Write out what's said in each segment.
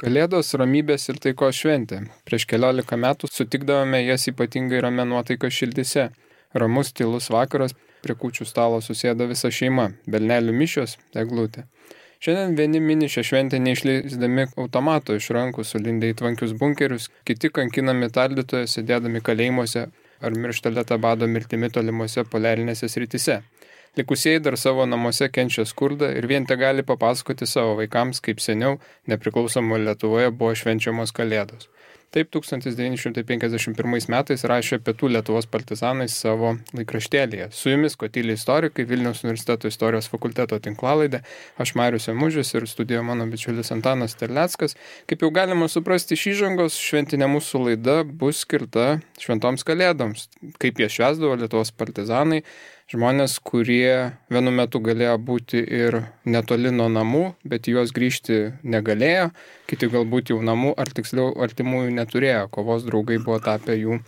Kalėdos ramybės ir taikos šventė. Prieš keliolika metų sutikdavome jas ypatingai ramia nuotaika šildyse. Ramus, tylus vakaras, prie kūčių stalo susėda visa šeima, belnelių mišios, eglutė. Šiandien vieni mini šią šventę neišleisdami automato iš rankų, sulindę į tvankius bunkerius, kiti kankinami tardytoje, sėdėdami kalėjimuose ar mirštelėta bado mirtimi tolimuose poliarinėse srityse. Likusieji dar savo namuose kenčia skurdą ir vien te gali papasakoti savo vaikams, kaip seniau nepriklausomo Lietuvoje buvo švenčiamos Kalėdos. Taip 1951 metais rašė Pietų Lietuvos partizanai savo laikraštėlyje. Su jumis Kotyliai istorikai, Vilniaus universiteto istorijos fakulteto tinklalaidė, aš Marius Emužis ir studijoje mano bičiulis Antanas Terleckas. Kaip jau galima suprasti iš įžangos, šventinė mūsų laida bus skirta šventoms Kalėdoms. Kaip jie švęsdavo Lietuvos partizanai, žmonės, kurie vienu metu galėjo būti ir netoli nuo namų, bet juos grįžti negalėjo, kiti galbūt jau namų ar tiksliau artimųjų neturėjo, kovos draugai buvo tapę jų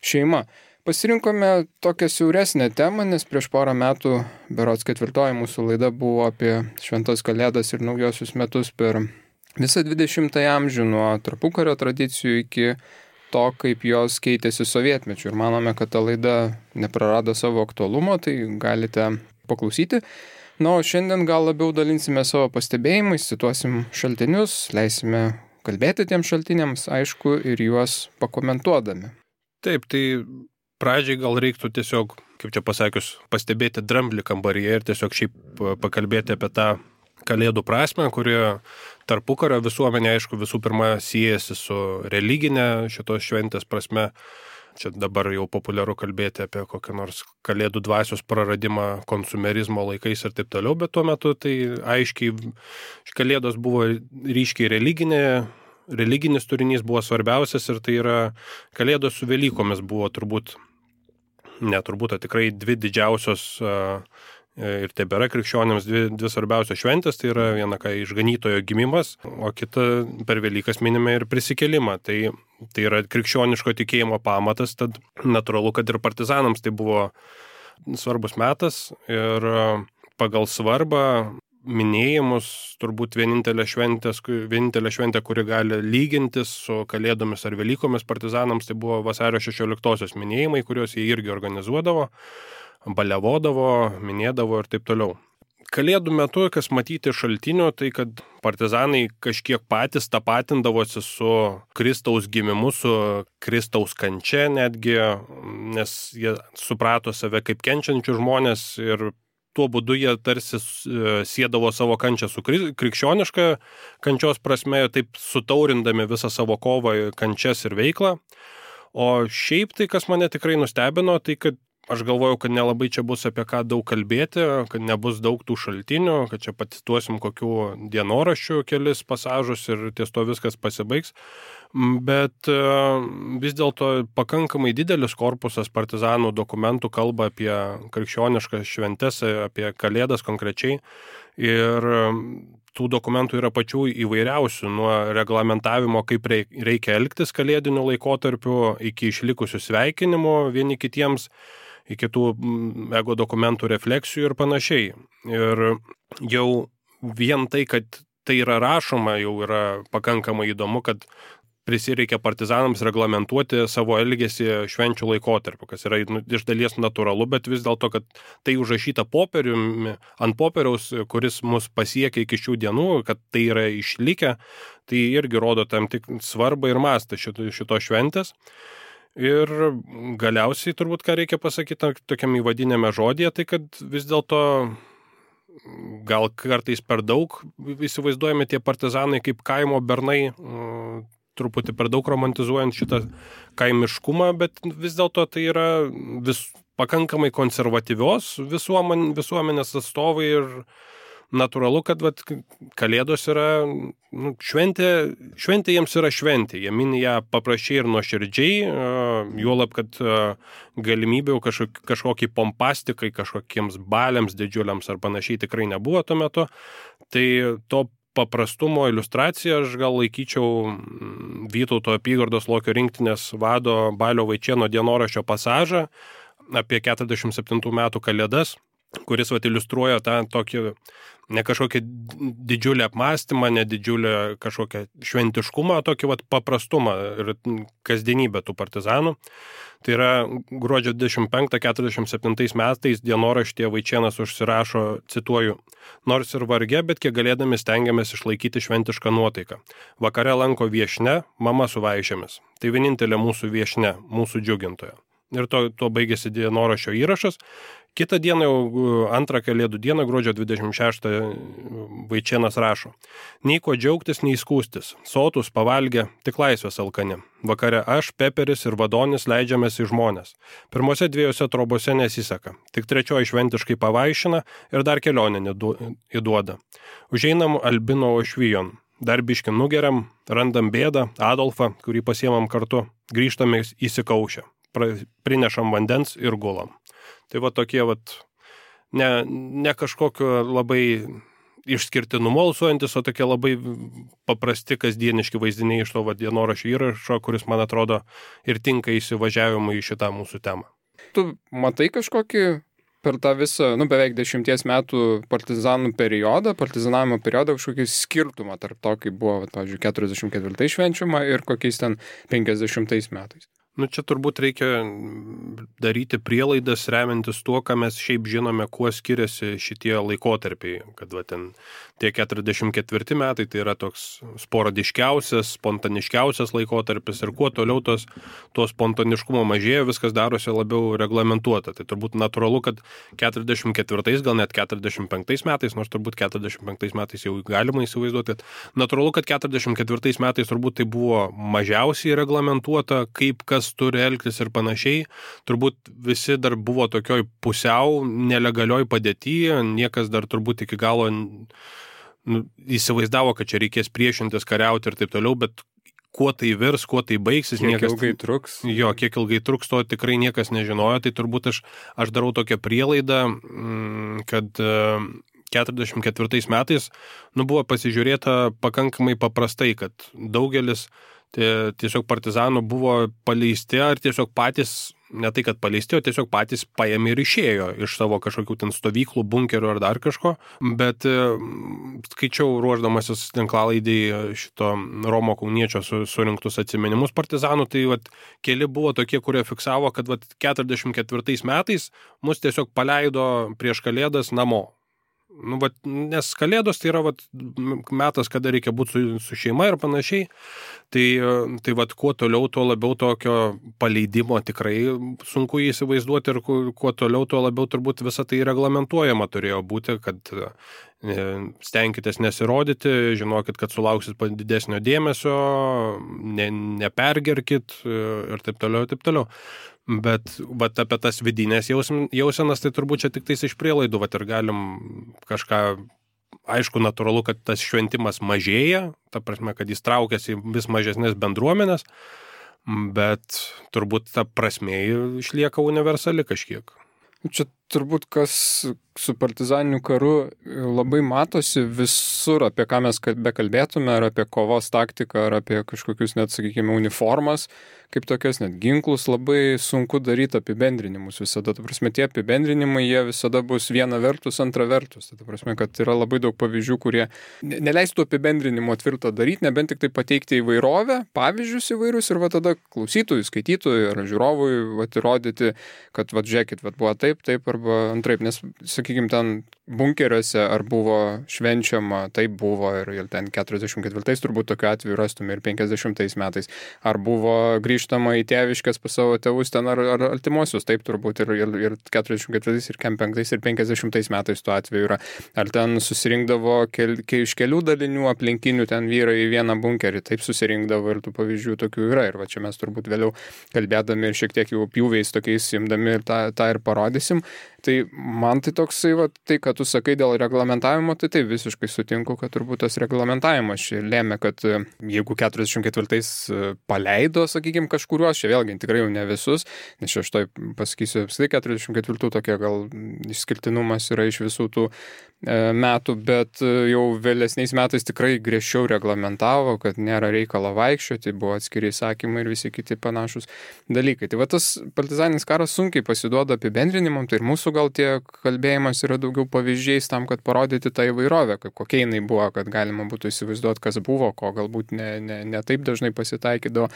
šeima. Pasirinkome tokią siauresnę temą, nes prieš porą metų, berods 4 mūsų laida buvo apie šventas Kalėdas ir naujosius metus per visą 20 amžių, nuo tarpukario tradicijų iki to, kaip jos keitėsi sovietmečiu. Ir manome, kad ta laida neprarado savo aktualumo, tai galite paklausyti. Na, o šiandien gal labiau dalinsime savo pastebėjimais, cituosim šaltinius, leisime kalbėti tiems šaltiniams, aišku, ir juos pakomentuodami. Taip, tai pradžiai gal reiktų tiesiog, kaip čia pasakius, pastebėti dramblį kambaryje ir tiesiog šiaip pakalbėti apie tą Kalėdų prasmę, kuri tarpukario visuomenė, aišku, visų pirma siejasi su religinė šitos šventės prasme. Čia dabar jau populiaru kalbėti apie kokią nors Kalėdų dvasios praradimą konsumerizmo laikais ir taip toliau, bet tuo metu tai aiškiai Kalėdos buvo ryškiai religinis turinys buvo svarbiausias ir tai yra Kalėdos su Velykomis buvo tikrai dvi didžiausios ir tebėra krikščionėms dvi svarbiausios šventės, tai yra viena išganytojo gimimas, o kita per Velykas minime ir prisikėlimą. Tai yra krikščioniško tikėjimo pamatas, tad natūralu, kad ir partizanams tai buvo svarbus metas ir pagal svarbą minėjimus turbūt vienintelė šventė, kuri gali lygintis su Kalėdomis ar Velykomis partizanams, tai buvo vasario 16-osios minėjimai, kuriuos jie irgi organizuodavo, baliavodavo, minėdavo ir taip toliau. Kalėdų metu, kas matyti šaltinių, tai kad partizanai kažkiek patys tapatindavosi su Kristaus gimimu, su Kristaus kančia netgi, nes jie suprato save kaip kenčiančių žmonės ir tuo būdu jie tarsi siedavo savo kančią su krikščioniška kančios prasme, taip sutaurindami visą savo kovą, kančias ir veiklą. O šiaip tai, kas mane tikrai nustebino, tai kad aš galvojau, kad nelabai čia bus apie ką daug kalbėti, kad nebus daug tų šaltinių, kad čia pacituosim kokių dienoraščių kelis pasažus ir ties to viskas pasibaigs. Bet vis dėlto pakankamai didelis korpusas partizanų dokumentų kalba apie krikščioniškas šventes, apie Kalėdas konkrečiai. Ir tų dokumentų yra pačių įvairiausių, nuo reglamentavimo, kaip reikia elgtis kalėdiniu laikotarpiu, iki išlikusių sveikinimų vieni kitiems, iki tų ego dokumentų refleksijų ir panašiai. Ir jau vien tai, kad tai yra rašoma, jau yra pakankamai įdomu, kad prisireikia partizanams reglamentuoti savo elgesį švenčių laikotarpiu, kas yra iš dalies natūralu, bet vis dėlto, kad tai užrašyta ant popieriaus, kuris mus pasiekia iki šių dienų, kad tai yra išlikę, tai irgi rodo tam tik svarbą ir mastą šito šventės. Ir galiausiai turbūt, ką reikia pasakyti tokiam įvadinėme žodėje, tai kad vis dėlto gal kartais per daug įsivaizduojame tie partizanai kaip kaimo bernai, truputį per daug romantizuojant šitą kaimiškumą, bet vis dėlto tai yra pakankamai konservatyvios visuomenės atstovai ir natūralu, kad Kalėdos yra šventė jiems yra šventė, jie mini ją paprasčiai ir nuoširdžiai, juolab, kad galimybių kažkokiai pompastikai, kažkokiems baliams didžiuliams ar panašiai tikrai nebuvo tuo metu, tai to paprastumo iliustraciją aš gal laikyčiau Vytauto apygardos Lokio rinktinės vado Balio Vaičėno dienoraščio pasažą apie 47 metų Kalėdas, kuris iliustruoja tą tokį Ne kažkokia didžiulė apmąstymą, ne didžiulę kažkokią šventiškumą, tokį paprastumą ir kasdienybę tų partizanų. Tai yra gruodžio 25-47 metais dienoraštyje Vaičėnas užsirašo, cituoju, nors ir varge, bet kiek galėdami stengiamės išlaikyti šventišką nuotaiką. Vakare lanko viešne, mama su vaišėmis. Tai vienintelė mūsų viešne, mūsų džiugintoja. Ir to baigėsi dienoraščio įrašas. Kitą dieną, jau antrą Kalėdų dieną, gruodžio 26, Vaičėnas rašo. Nei ko džiaugtis, nei skūstis. Sotus, pavalgę, tik laisvės alkani. Vakare aš, Peperis ir Vadonis leidžiamės į žmonės. Pirmose 2 trobose nesiseka. Tik 3 šventiškai pavaišina ir dar kelionę įduoda. Užeinam Albino Ošvijon. Dar biškį nugeriam, randam bėdą, Adolfą, kurį pasiemam kartu. Grįžtame įsikaušę. Prinešam vandens ir gulam. Tai tokie ne kažkokio labai išskirtinumo alsuojantis, o tokie labai paprasti kasdieniški vaizdiniai iš to dienoraščio įrašo, kuris, man atrodo, ir tinka įsivažiavimui į šitą mūsų temą. Tu matai kažkokį per tą visą, beveik 10 metų partizanų periodą, partizanavimo periodą, kažkokį skirtumą tarp to, kaip buvo, pavyzdžiui, 44 švenčiama ir kokiais ten 50 metais? Čia turbūt reikia daryti prielaidas remiantis tuo, ką mes šiaip žinome, kuo skiriasi šitie laikotarpiai. Kad ten tie 44 metai tai yra toks sporadiškiausias, spontaniškiausias laikotarpis ir kuo toliau to spontaniškumo mažėja, viskas darosi labiau reglamentuota. Tai turbūt natūralu, kad 44, gal net 45 metais, nors turbūt 45 metais jau galima įsivaizduoti, kad natūralu, kad 44 metais turbūt tai buvo mažiausiai reglamentuota, kaip kas turi elgtis ir panašiai. Turbūt visi dar buvo tokioj pusiau nelegalioj padėtyje, niekas dar turbūt iki galo įsivaizdavo, kad čia reikės priešintis, kariauti ir taip toliau, bet kuo tai virs, kuo tai baigsis, kiek ilgai truks. Jo, kiek ilgai truks, to tikrai niekas nežinojo, tai turbūt aš darau tokią prielaidą, kad 44 metais buvo pasižiūrėta pakankamai paprastai, kad daugelis tiesiog partizanų buvo paleisti ar tiesiog patys, ne tai kad paleisti, o tiesiog patys paėmė ir išėjo iš savo kažkokių ten stovyklų, bunkerių ar dar kažko, bet skaičiau ruošdamasis tinklalaidai šito Romo Kauniečio surinktus atsiminimus partizanų, tai keli buvo tokie, kurie fiksavo, kad 44 metais mus tiesiog paleido prieš Kalėdas namo. Nes Kalėdos tai yra metas, kada reikia būti su šeima ir panašiai. Tai kuo toliau, tuo labiau tokio paleidimo tikrai sunku įsivaizduoti ir kuo toliau, tuo labiau turbūt visą tai reglamentuojama turėjo būti, kad stenkitės nesirodyti, žinokit, kad sulauksit didesnio dėmesio, nepergerkit ir taip toliau. Bet apie tas vidinės jausenas, tai turbūt čia tik tais iš prielaidų, ir galim kažką, aišku, natūralu, kad tas šventimas mažėja, ta prasme, kad jis traukiasi vis mažesnės bendruomenės, bet turbūt ta prasmė išlieka universali kažkiek. Čia turbūt kas su partizaniniu karu labai matosi visur, apie ką mes bekalbėtume, ar apie kovos taktiką, ar apie kažkokius net, sakykime, uniformas, kaip tokias net ginklus, labai sunku daryti apibendrinimus visada. Ta prasme, tie apibendrinimai, jie visada bus viena vertus, antra vertus. Ta prasme, kad yra labai daug pavyzdžių, kurie neleistų apibendrinimo tvirto daryti, nebent tik tai pateikti įvairovę, pavyzdžius įvairius ir tada klausytojui, skaitytojui ar žiūrovui įrodyti, kad žiūrėkit, buvo taip arba antraip, nes, sakykime, ten bunkeriuose ar buvo švenčiama, taip buvo ir ten 44 turbūt tokiu atveju rastume ir 50 metais, ar buvo grįžtama į tėviškes pas savo tėvus ten ar artimuosius, taip turbūt ir 44 ir 5 ir 50 metais tuo atveju yra, ar ten susirinkdavo iš kelių dalinių aplinkinių ten vyrai į vieną bunkerį, taip susirinkdavo ir tų pavyzdžių tokių yra ir čia mes turbūt vėliau kalbėdami ir šiek tiek jau pjūviais tokiais imdami ir tą ir parodysim. Tai man tai toksai, tai, kad tu sakai dėl reglamentavimo, tai taip visiškai sutinku, kad turbūt tas reglamentavimas čia lėmė, kad jeigu 44 paleido, sakykime, kažkuriuos, čia vėlgi tikrai jau ne visus, nes aš tai pasakysiu, apskritai 44 tokia gal išskirtinumas yra iš visų tų metų, bet jau vėlesniais metais tikrai griežčiau reglamentavo, kad nėra reikalo vaikščioti, buvo atskiri įsakymai ir visi kiti panašus dalykai. Tai tas partizaninis karas sunkiai pasiduoda apibendrinimam, tai ir mūsų gal tie kalbėjimas yra daugiau pavyzdžių pavyzdžiais tam, kad parodyti tą įvairovę, kokia jinai buvo, kad galima būtų įsivaizduoti, kas buvo, ko galbūt ne taip dažnai pasitaikydavo.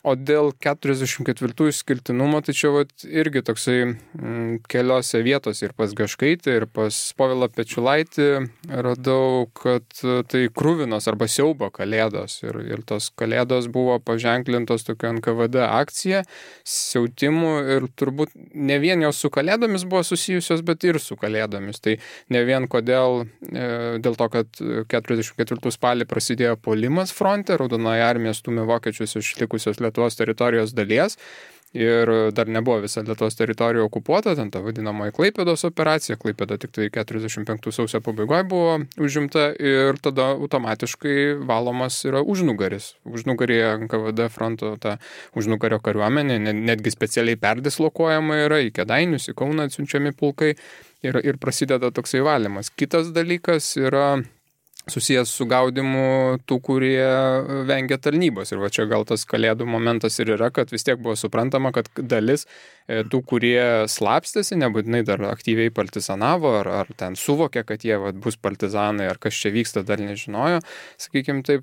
O dėl 44 išskirtinumo, tai čia irgi toksai keliose vietose ir pas Gaškaitį, ir pas Povilą Pečiulaitį radau, kad tai kruvinos arba siaubo kalėdos. Ir tos kalėdos buvo paženklintos tokia NKVD akcija, siautimų ir turbūt ne vien jos su kalėdomis buvo susijusios, bet ir su kalėdomis. Tai ne vien dėl to, kad 44 spalį prasidėjo puolimas fronte, Raudonoji armija stūmė vokiečius iš likusios Lietuvos teritorijos dalies ir dar nebuvo visa Lietuvos teritorija okupuota, ten ta vadinamoji Klaipėdos operacija, Klaipėda tik tai 45 sausio pabaigoje buvo užimta ir tada automatiškai valomas yra užnugaris. Užnugaryje NKVD fronto ta užnugario kariuomenė, netgi specialiai perdislokuojama yra, į Kėdainius, į Kauną atsiunčiami pulkai ir prasideda toksai valymas. Kitas dalykas yra susijęs su gaudimu tų, kurie vengia tarnybos. Ir va čia gal tas kalėdų momentas ir yra, kad vis tiek buvo suprantama, kad dalis tų, kurie slapstėsi, nebūtinai dar aktyviai partizanavo, ar ten suvokė, kad jie bus partizanai, ar kas čia vyksta, dar nežinojo, sakykime taip,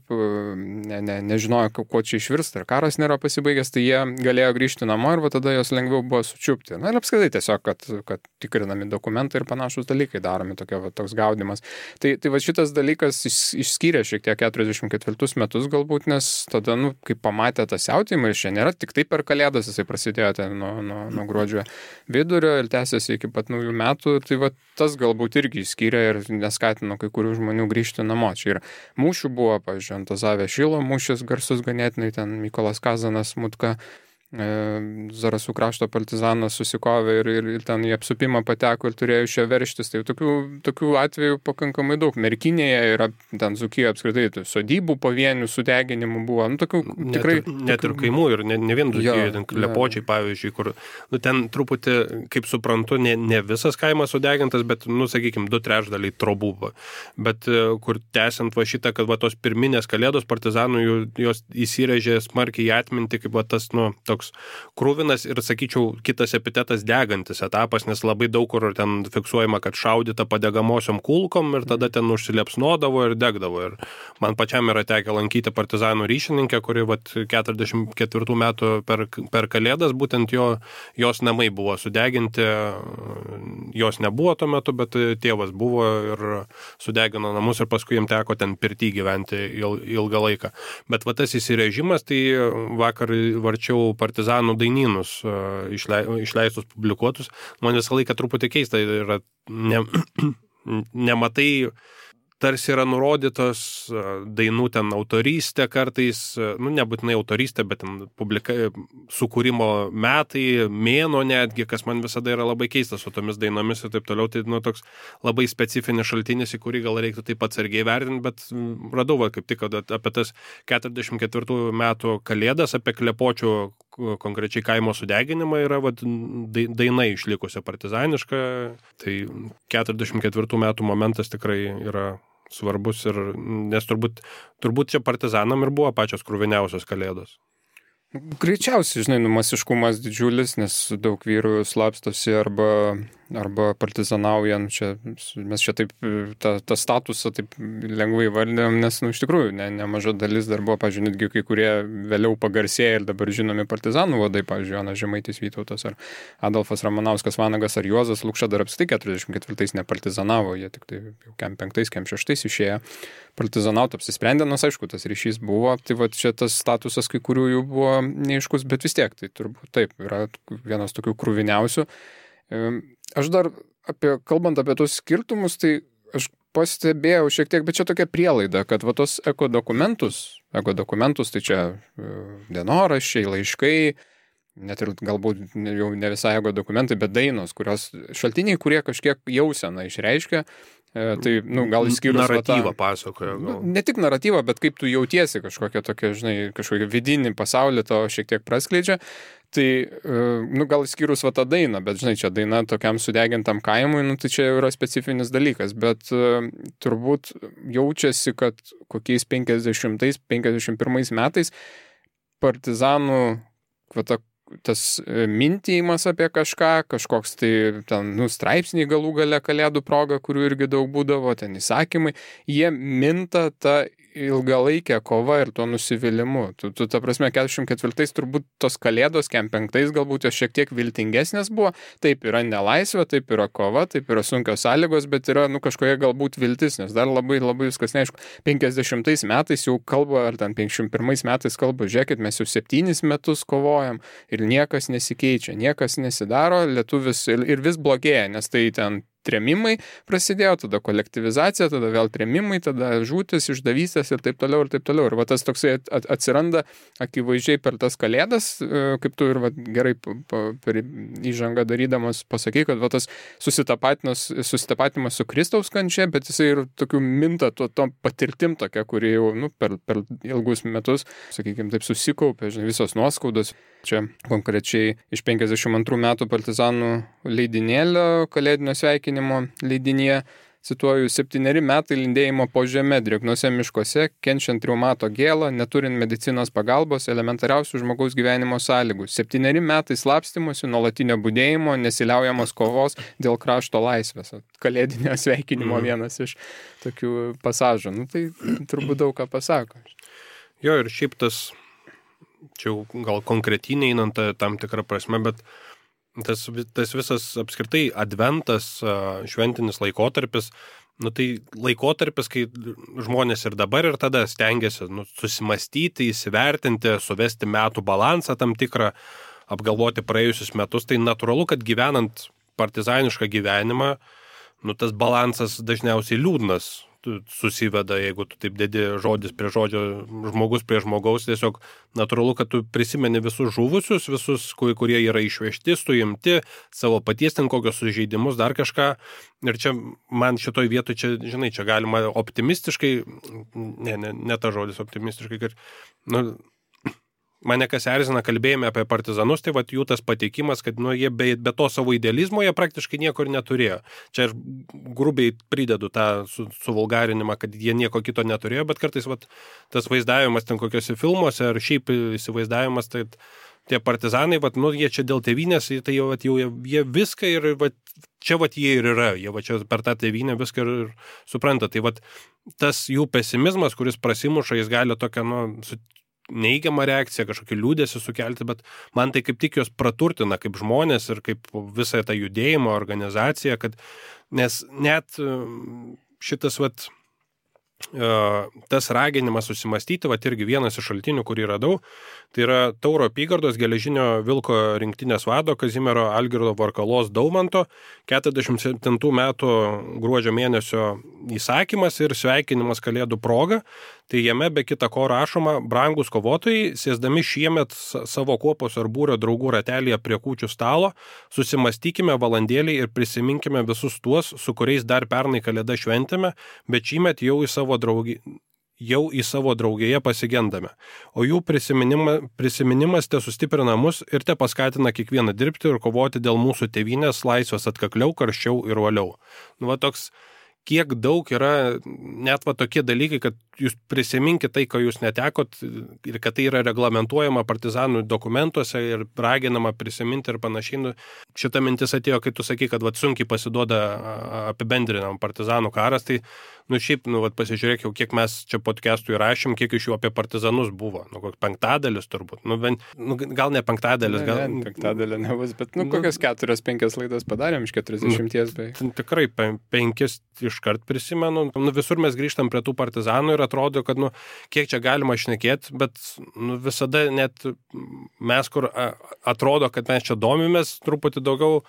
nežinojo, kuo čia išvirsta, ar karas nėra pasibaigęs, tai jie galėjo grįžti namo ir va tada jos lengviau buvo sučiupti. Na ir apskritai tiesiog, kad tikrinami dokumentai ir panašus dalykai daromi, toks gaudimas. Tai va šitas dalykas išskyrė šiek tiek 44 metus galbūt, nes tada, kai pamatė tą siautėjimą, ir čia nėra tik tai per kalėdas, jisai prasidėjo ten nuo gruodžio vidurio ir tęsiasi iki pat naujų metų, tai va tas galbūt irgi išskyrė ir neskatino kai kurių žmonių grįžti namo. Čia ir mūšių buvo, pavyzdžiui, Antazavė Šilo mūšis garsus ganėtinai, ten Mykolas Kazanas, Mutka, Zarasų krašto partizanas susikovė ir ten į apsupimą pateko ir turėjo iš jo verštis. Tai tokių atvejų pakankamai daug. Merkinėje yra ten Dzūkijoje apskritai sodybų pavienių sudeginimų buvo. Tokių tikrai... Net ir kaimų ir ne vien Dzūkijoje, ten Klepočiai, pavyzdžiui, kur ten truputį, kaip suprantu, ne visas kaimas sudegintas, bet, sakykime, 2/3 trobų. Bet kur tęsiant va šitą, kad va tos pirminės kalėdos partizanų jos įsirėžė smarkiai į atmintį, kaip va tas, toks krūvinas ir, sakyčiau, kitas epitetas degantis etapas, nes labai daug kur ten fiksuojama, kad šaudyta padegamosiom kulkom ir tada ten užsiliepsnodavo ir degdavo. Ir man pačiam yra tekę lankyti partizanų ryšininkę, kuri 44 metų per kalėdas, būtent jos namai buvo sudeginti, jos nebuvo tuo metu, bet tėvas buvo ir sudegino namus ir paskui jam teko ten pirty gyventi ilgą laiką. Bet va tas įsirežimas, tai vakar varčiau partizanų dainynus išleistus, publikuotus. Man visą laiką truputį keista yra, nematai, tarsi yra nurodytos dainų ten autorystė kartais, nebūtinai autorystė, bet ten sukūrimo metai, mėno netgi, kas man visada yra labai keistas su tomis dainomis ir taip toliau. Tai toks labai specifinis šaltinis, į kurį gal reiktų taip atsargiai vertinti, bet radau kaip tik apie tas 44 metų kalėdas, apie Klepočių konkrečiai kaimo sudeginimą yra daina išlikusi partizaniška. Tai 44 metų momentas tikrai yra svarbus, nes turbūt čia partizanam ir buvo pačios kruviniausios kalėdos. Greičiausiai, masiškumas didžiulis, nes daug vyrų slapstosi arba partizanaujant. Mes čia taip tą statusą taip lengvai vardėm, nes iš tikrųjų nemaža dalis dar buvo, pavyzdžiui, netgi kai kurie vėliau pagarsėję ir dabar žinomi partizanų vadai, pavyzdžiui, Jonas Žemaitis Vytautas ar Adolfas Ramanauskas Vanagas ar Juozas Lukša dar apskritai 44 nepartizanavo, jie tik tai jau kem 5, kem 6 išėjo partizanauti, apsisprendė, nors aišku, tas ryšys buvo, tai va čia tas statusas kai kurių jų buvo neaiškus, bet vis tiek, tai turbūt taip, yra vienas tokių kruviniausių. Aš dar kalbant apie tos skirtumus, tai aš pastebėjau šiek tiek, bet čia tokia prielaida, kad va tos ekodokumentus, tai čia dienoraščiai, laiškai, net ir galbūt jau ne visai ekodokumentai, bet dainos, šaltiniai, kurie kažkiek jauseną išreiškia. Tai, gal išskyrus naratyvą pasakoja. Ne tik naratyvą, bet kaip tu jautiesi kažkokią tokią, kažkokią vidinį pasaulį to šiek tiek praskleidžia. Tai, gal išskyrus tą dainą, bet, čia daina tokiam sudegintam kaimui, tai čia yra specifinis dalykas, bet turbūt jaučiasi, kad kokiais 50-51 metais partizanų tas mintijimas apie kažkoks tai ten, straipsniai galų gale kalėdų proga, kurių irgi daug būdavo, ten įsakymai, jie minta tą ilgalaikę kovą ir tuo nusivylimu. Ta prasme, 44 turbūt tos kalėdos, 45 galbūt jos šiek tiek viltingesnės buvo, taip yra nelaisvė, taip yra kova, taip yra sunkios sąlygos, bet yra, kažkokia galbūt viltis, nes dar labai viskas neaišku. 50 metais jau kalba, ar ten 51 metais kalba, žiūrėkit, mes jau 7 metus kovojam ir niekas nesikeičia, niekas nesidaro, lietuvis ir vis blogėja, nes tai ten trėmimai prasidėjo, tada kolektyvizacija, tada vėl trėmimai, tada žūtis, išdavystės ir taip toliau. Ir va tas toksai atsiranda akivaizdžiai per tas kalėdas, kaip tu ir gerai per įžangą darydamas pasakai, kad va tas susitapatimas su Kristaus kančia, bet jisai ir tokių minta to patirtim tokia, kuri jau per ilgus metus, sakykime, taip susikaupė, visos nuoskaudos. Čia konkrečiai iš 52 metų partizanų leidinėlio kalėdinio sveikinimo leidinyje, cituoju, 7 metai lindėjimo po žeme drėgnose miškuose, kenčiant reumato gėlą, neturint medicinos pagalbos, elementariausių žmogaus gyvenimo sąlygų. 7 metai slapstymosi, nuolatinio budėjimo, nesiliaujamos kovos dėl krašto laisvės. Kalėdinio sveikinimo vienas iš tokių pasažų. Tai turbūt daug ką pasako. Jo, ir šiaip tas, čia gal konkretinė einant tam tikrą prasme, bet tas visas apskritai adventas, šventinis laikotarpis, tai laikotarpis, kai žmonės ir dabar ir tada stengiasi susimastyti, įsivertinti, suvesti metų balansą tam tikrą, apgalvoti praėjusius metus, tai natūralu, kad gyvenant partizanišką gyvenimą, tas balansas dažniausiai liūdnas susiveda, jeigu tu taip dedi žodis prie žodžio, žmogus prie žmogaus, tiesiog natūralu, kad tu prisimeni visus žuvusius, visus, kurie yra išvežti, suimti, savo paties ten kokios sužeidimus, dar kažką. Ir čia man šitoj vietoj, čia galima optimistiškai, ne ta žodis optimistiškai, kad, mane kas erzina kalbėjime apie partizanus, tai jų tas pateikimas, kad jie be to savo idealizmo jie praktiškai nieko ir neturėjo. Čia aš grubiai pridedu tą suvulgarinimą, kad jie nieko kito neturėjo, bet kartais tas vaizdavimas ten kokiuose filmuose ar šiaip įsivaizdavimas, tai tie partizanai, jie čia dėl tėvynės, tai jau jie viską ir čia jie ir yra, jie čia per tą tėvynę viską ir supranta. Tai tas jų pesimizmas, kuris prasimuša, jis gali tokią, neįgiamą reakciją, kažkokį liūdėsį sukelti, bet man tai kaip tik jos praturtina kaip žmonės ir kaip visą tą judėjimo organizaciją, nes net šitas tas raginimas susimastyti, irgi vienas iš šaltinių, kurį radau, tai yra Tauro apygardos geležinio vilko rinktinės vado Kazimiero Algirdo Varkalos Daumanto 47 metų gruodžio mėnesio įsakymas ir sveikinimas kalėdų proga. Tai jame be kita ko rašoma: brangus kovotojai, sėsdami šiemet savo kuopos ar būrio draugų ratelyje prie kūčių stalo, susimastykime valandėlį ir prisiminkime visus tuos, su kuriais dar pernai kalėdą šventėme, bet šįmet jau į savo draugėje pasigendame. O jų prisiminimas te sustiprina mus ir te paskatina kiekvieną dirbti ir kovoti dėl mūsų tėvynės laisvės atkakliau, karščiau ir uoliau. Toks, kiek daug yra net tokie dalykai, kad jūs prisiminkite tai, ko jūs netekot ir kad tai yra reglamentuojama partizanų dokumentuose ir raginama prisiminti ir panašiai. Šita mintis atėjo, kai tu sakai, kad sunkiai pasiduoda apibendrinam partizanų karas, tai šiaip, pasižiūrėk jau, kiek mes čia podcastų įrašėm, kiek iš jų apie partizanus buvo. Koks 5 turbūt. Gal ne 5, gal... Ne, 5 nebus, bet kokias 4-5 laidas padarėm iš 40 beveik. Tikrai 5 iškart prisimenu. Visur mes grįžtam prie tų partizanų ir atrodo, kad kiek čia galima šnekėti, bet visada net mes, kur atrodo, kad mes čia domimės truputį daugiau,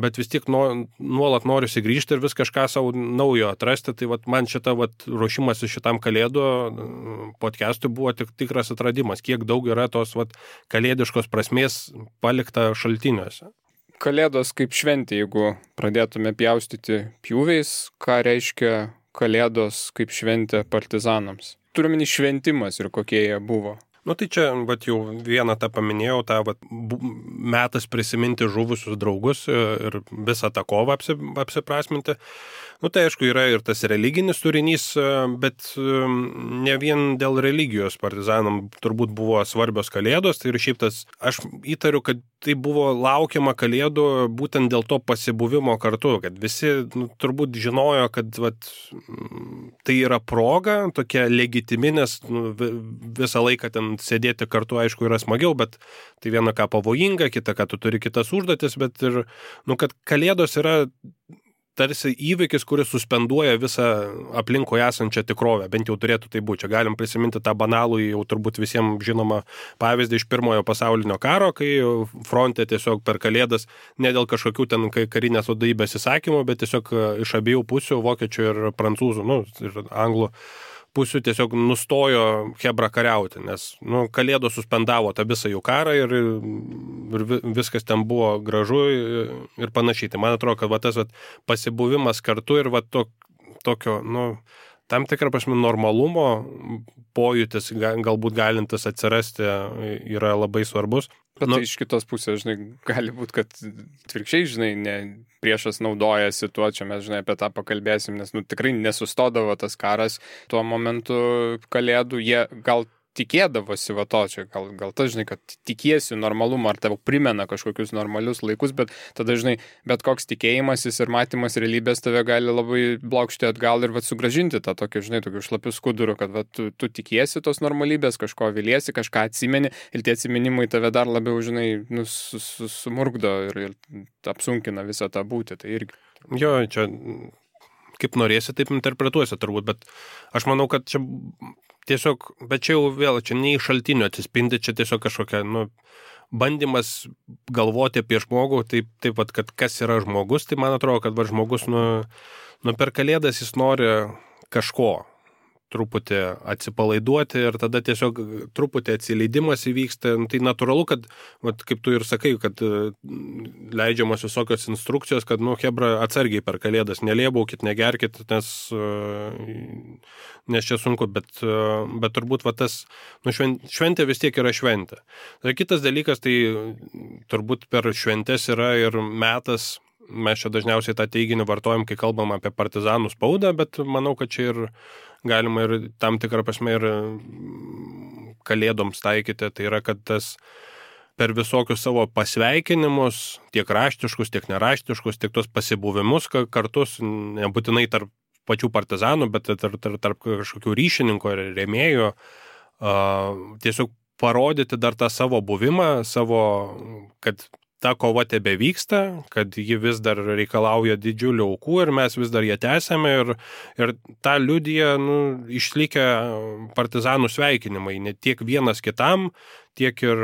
bet vis tiek nuolat noriu grįžti ir vis kažką savo naujo atrasti. Tai man šita ruošimas šitam kalėdų podcastui buvo tikras atradimas, kiek daug yra tos kalėdiškos prasmės palikta šaltiniuose. Kalėdos kaip šventė, jeigu pradėtume pjaustyti pjūviais, ką reiškia kalėdos kaip šventė partizanams? Turiuomenį šventimas ir kokie jie buvo. Nu tai čia, vat jau vieną tą paminėjau, tą vat, metas prisiminti žuvusius draugus ir visą tą kovą apsiprasminti. Nu tai aišku, yra ir tas religinis turinys, bet ne vien dėl religijos partizanam turbūt buvo svarbios kalėdos, tai ir šiaip tas, aš įtariu, kad tai buvo laukiama kalėdų būtent dėl to pasibuvimo kartu, kad visi turbūt žinojo, kad vat, tai yra proga, tokia legitimi, nes visą laiką ten sėdėti kartu, aišku, yra smagiau, bet tai viena ką pavojinga, kita ką tu turi kitas užduotis, bet ir, kad kalėdos yra tarsi įvykis, kuris suspenduoja visą aplinkoje esančią tikrovę, bent jau turėtų tai būti. Čia galim prisiminti tą banalų, jau turbūt visiems žinomą pavyzdį iš Pirmojo pasaulinio karo, kai fronte tiesiog per kalėdas, ne dėl kažkokių ten karinės vadovybės įsakymų, bet tiesiog iš abiejų pusių, vokiečių ir prancūzų, ir anglų pusių tiesiog nustojo chebra kariauti, nes kalėdos suspendavo tą visą jų karą ir viskas ten buvo gražu ir panašiai. Tai man atrodo, kad tas pasibuvimas kartu ir tokio, tam tikrą prasme normalumo pojūtis galbūt galintis atsirasti yra labai svarbus. Bet tai iš kitos pusės, gali būti, kad atvirkščiai, priešas naudojasi tuo, čia mes, apie tą pakalbėsim, nes, tikrai nesustodavo tas karas tuo momentu kalėdų, jie gal tikėdavosi to, čia gal tas, kad tikiesi normalumą, ar tau primena kažkokius normalius laikus, bet tada, bet koks tikėjimasis ir matymas realybės tave gali labai blokšti atgal ir sugražinti tą tokį, tokių šlapių skudurų, kad tu tikiesi tos normalybės, kažko viliesi, kažką atsimeni ir tie atsiminimai tave dar labiau, sumurgdo ir apsunkina visą tą būtį. Tai irgi. Jo, čia kaip norėsi, taip interpretuosi turbūt, bet aš manau, kad čia tiesiog, bet čia jau vėl, čia ne iš šaltinio atsispindi, čia tiesiog kažkokia, bandymas galvoti apie žmogų, taip kad kas yra žmogus, tai man atrodo, kad žmogus, per kalėdas jis nori kažko, truputį atsipalaiduoti ir tada tiesiog truputį atsileidimas įvyksta. Tai natūralu, kad, kaip tu ir sakai, kad leidžiamos visokios instrukcijos, kad, chebra, atsargiai per kalėdas, nelėbaukit, negerkit, nes čia sunku, bet turbūt tas, šventė vis tiek yra šventė. Tai kitas dalykas, tai turbūt per šventės yra ir metas, mes čia dažniausiai tą teiginį vartojam, kai kalbam apie partizanų spaudą, bet manau, kad čia ir galima ir tam tikrą prasme ir kalėdoms taikyti. Tai yra, kad tas per visokius savo pasveikinimus, tiek raštiškus, tiek neraštiškus, tiek tos pasibuvimus kartus, nebūtinai tarp pačių partizanų, bet tarp kažkokių ryšininkų ir rėmėjų, tiesiog parodyti dar tą savo buvimą, kad ta kova tebe vyksta, kad ji vis dar reikalauja didžiulių aukų ir mes vis dar ją tęsiame ir tą liudija išlikę partizanų sveikinimai, ne tiek vienas kitam, tiek ir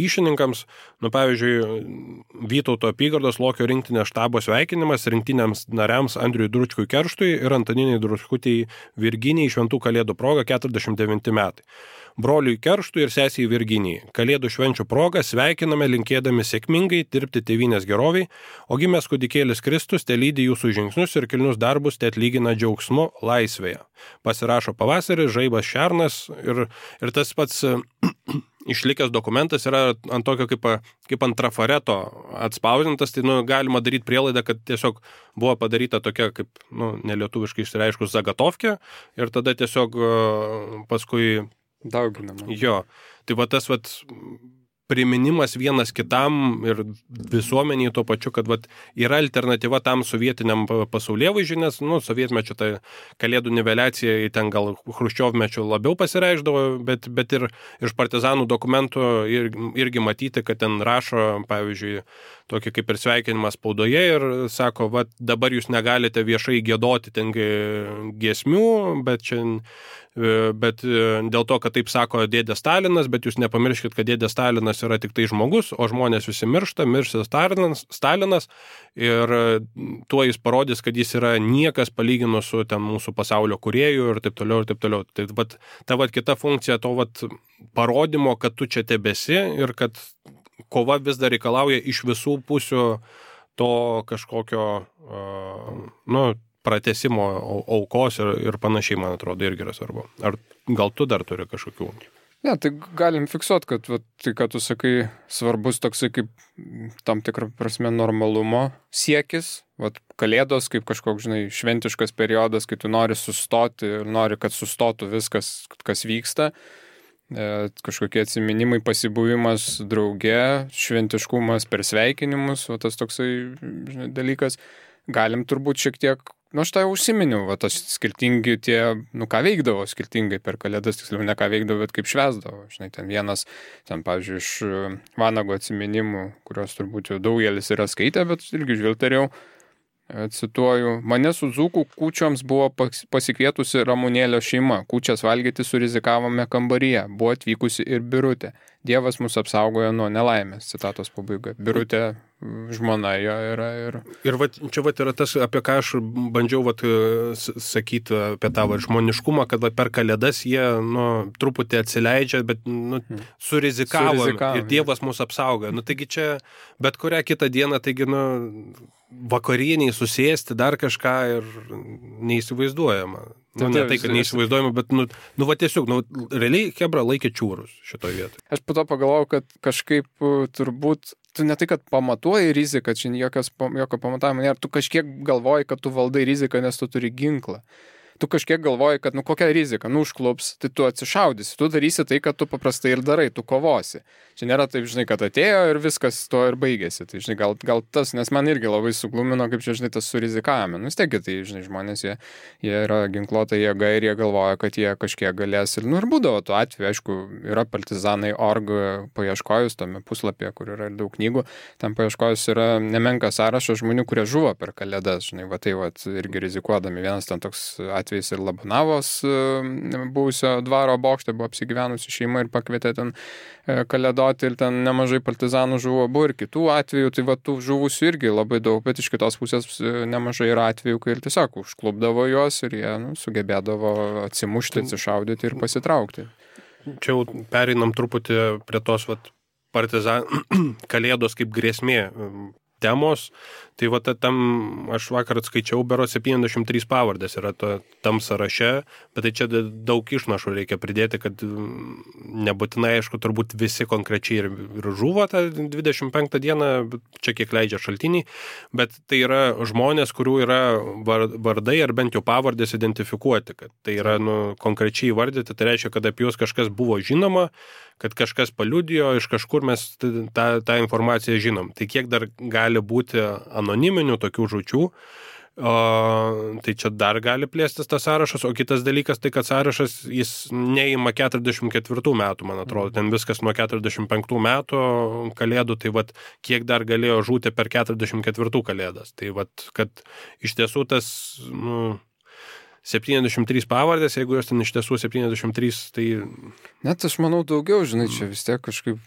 ryšininkams. Pavyzdžiui, Vytauto apygardos Lokio rinktinės štabo sveikinimas rinktiniams nariams Andriui Dručkui Kerštui ir Antaninei Dručkutei Virginijai šventų kalėdų proga 49 metai. Broliui Kerštui ir sesiai Virginijai. Kalėdų švenčių proga sveikiname linkėdami sėkmingai dirbti tėvynės geroviai, o gimęs kūdikėlis Kristus te lydi jūsų žingsnius ir kilnius darbus te atlygina džiaugsmu laisvėje. Pasirašo Pavasaris, Žaibas Šernas ir tas pats išlikęs dokumentas yra ant tokio kaip ant trafareto atspausdintas, tai galima daryti prielaidą, kad tiesiog buvo padaryta tokia kaip, nelietuviškai išsireiškus zagatovkė ir tada tiesiog paskui dauginama. Jo, tai tas priminimas vienas kitam ir visuomeniai tuo pačiu, kad yra alternatyva tam sovietiniam pasaulėvaizdžiui, nes sovietmečio tai kalėdų niveliacija ten gal chruščiovmečio labiau pasireišdavo, bet ir iš partizanų dokumentų irgi matyti, kad ten rašo, pavyzdžiui, tokį kaip ir sveikinimą spaudoje ir sako, dabar jūs negalite viešai giedoti ten giesmių, bet dėl to, kad taip sako dėdė Stalinas, bet jūs nepamirškit, kad dėdė Stalinas yra tik tai žmogus, o žmonės visi miršta, miršta Stalinas ir tuo jis parodys, kad jis yra niekas palyginus su ten mūsų pasaulio kūrėjų ir taip toliau ir taip toliau. Tai ta kita funkcija to parodymo, kad tu čia tebesi ir kad kova vis dar reikalauja iš visų pusių to kažkokio, pratęsimo aukos ir panašiai, man atrodo, irgi yra svarbu. Ar gal tu dar turi kažkokių? Ne, tai galim fiksuoti, kad tai, ką tu sakai, svarbus toksai kaip tam tikrą prasme normalumo siekis. Kalėdos kaip kažkoks, šventiškas periodas, kai tu nori sustoti ir nori, kad sustotų viskas, kas vyksta. Kažkokie atsiminimai, pasibuvimas drauge, šventiškumas per sveikinimus, tas toksai dalykas. Galim turbūt šiek tiek, aš tai užsiminiau, tas skirtingi tie, ką veikdavo skirtingai per Kalėdas, tiksliau ne ką veikdavo, bet kaip švęsdavo. Ten vienas, pavyzdžiui, iš Vanago atsiminimų, kurios turbūt jau daugelis yra skaitę, bet irgi žvilgterėjau, cituoju, mane su dzūkų kūčioms buvo pasikvietusi Ramunėlio šeima, kūčias valgyti surizikavome kambaryje, buvo atvykusi ir Birutė. Dievas mus apsaugojo nuo nelaimės, citatos pabaiga. Birutė žmona jo yra. Ir čia yra tas, apie ką aš bandžiau sakyti apie tą žmoniškumą, kad per Kalėdas jie truputį atsileidžia, bet surizikavo ir Dievas mus apsaugojo. Taigi čia bet kurią kitą dieną, taigi vakarieniai susėsti dar kažką ir neįsivaizduojama. Ne tai, kad neįsivaizduojama, bet tiesiog, realiai Chebra laikė čiūrus šitoje vietoje. Aš po to pagalvojau, kad kažkaip turbūt tu ne tai, kad pamatuoji riziką, čia jokio pamatavimo nėra, tu kažkiek galvoji, kad tu valdai riziką, nes tu turi ginklą. Tu kažkiek galvoji, kad kokia rizika, užklups, tai tu atsišaudysi, tu darysi tai, kad tu paprastai ir darai, tu kovosi. Čia nėra taip, kad atėjo ir viskas to ir baigėsi. Tai, gal tas, nes man irgi labai suglumino, kaip čia, tas surizikavome. Vis tiek, tai, žmonės, jie yra ginkluota jėga ir jie galvoja, kad jie kažkiek galės. Ir būdavo tuo atveju, aišku, yra partizanai.org paieškojus tame puslapyje, kur yra daug knygų, ten paieškojus yra nemenkas sąrašas žmonių, kurie žuvo per Kalėdas, irgi rizikuodami. Vienas ten toks atvejis ir Labonavos buvusio dvaro bokšte buvo apsigyvenusi šeima ir pakvietė ten kalėdoti ir ten nemažai partizanų žuvo, buvo ir kitų atvejų, tai tų žuvusių irgi labai daug, bet iš kitos pusės nemažai yra atvejų, kai ir tiesiog užklupdavo juos ir jie sugebėdavo atsimušti, atsišaudyti ir pasitraukti. Čia jau pereinam truputį prie tos Kalėdos kaip grėsmė temos, tai tam aš vakar atskaičiau, bero 73 pavardės yra tam sąraše, bet tai čia daug išnašų reikia pridėti, kad nebūtinai, aišku, turbūt visi konkrečiai ir žuvo tą 25 dieną, čia kiek leidžia šaltiniai, bet tai yra žmonės, kurių yra vardai ar bent jau pavardės identifikuoti, kad tai yra konkrečiai įvardyti, tai reiškia, kad apie juos kažkas buvo žinoma, kad kažkas paliudijo, iš kažkur mes tą informaciją žinom. Tai kiek dar gali būti anoniminių tokių žūčių, tai čia dar gali plėstis tas sąrašas, o kitas dalykas tai, kad sąrašas jis neima 44 metų, man atrodo, ten viskas nuo 45 metų Kalėdų, tai kiek dar galėjo žūti per 44 Kalėdas. Tai kad iš tiesų tas, 73 pavardės, jeigu jos ten iš tiesų 73, tai... Net aš manau daugiau, čia vis tiek kažkaip,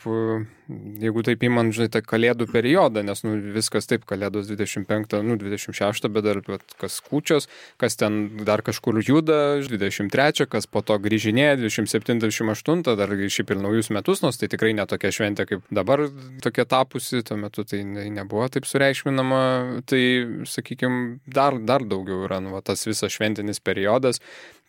jeigu taip įman, tą Kalėdų periodą, nes viskas taip, Kalėdos 25, 26, bet dar kas kūčios, kas ten dar kažkur juda, 23, kas po to grįžinėja, 27, 28, dar šiaip ir naujus metus, nors tai tikrai ne tokia šventė, kaip dabar tokia tapusi, tuo metu tai nebuvo taip sureikšminama, tai, sakykime, dar daugiau yra, tas visas šventinis periodas,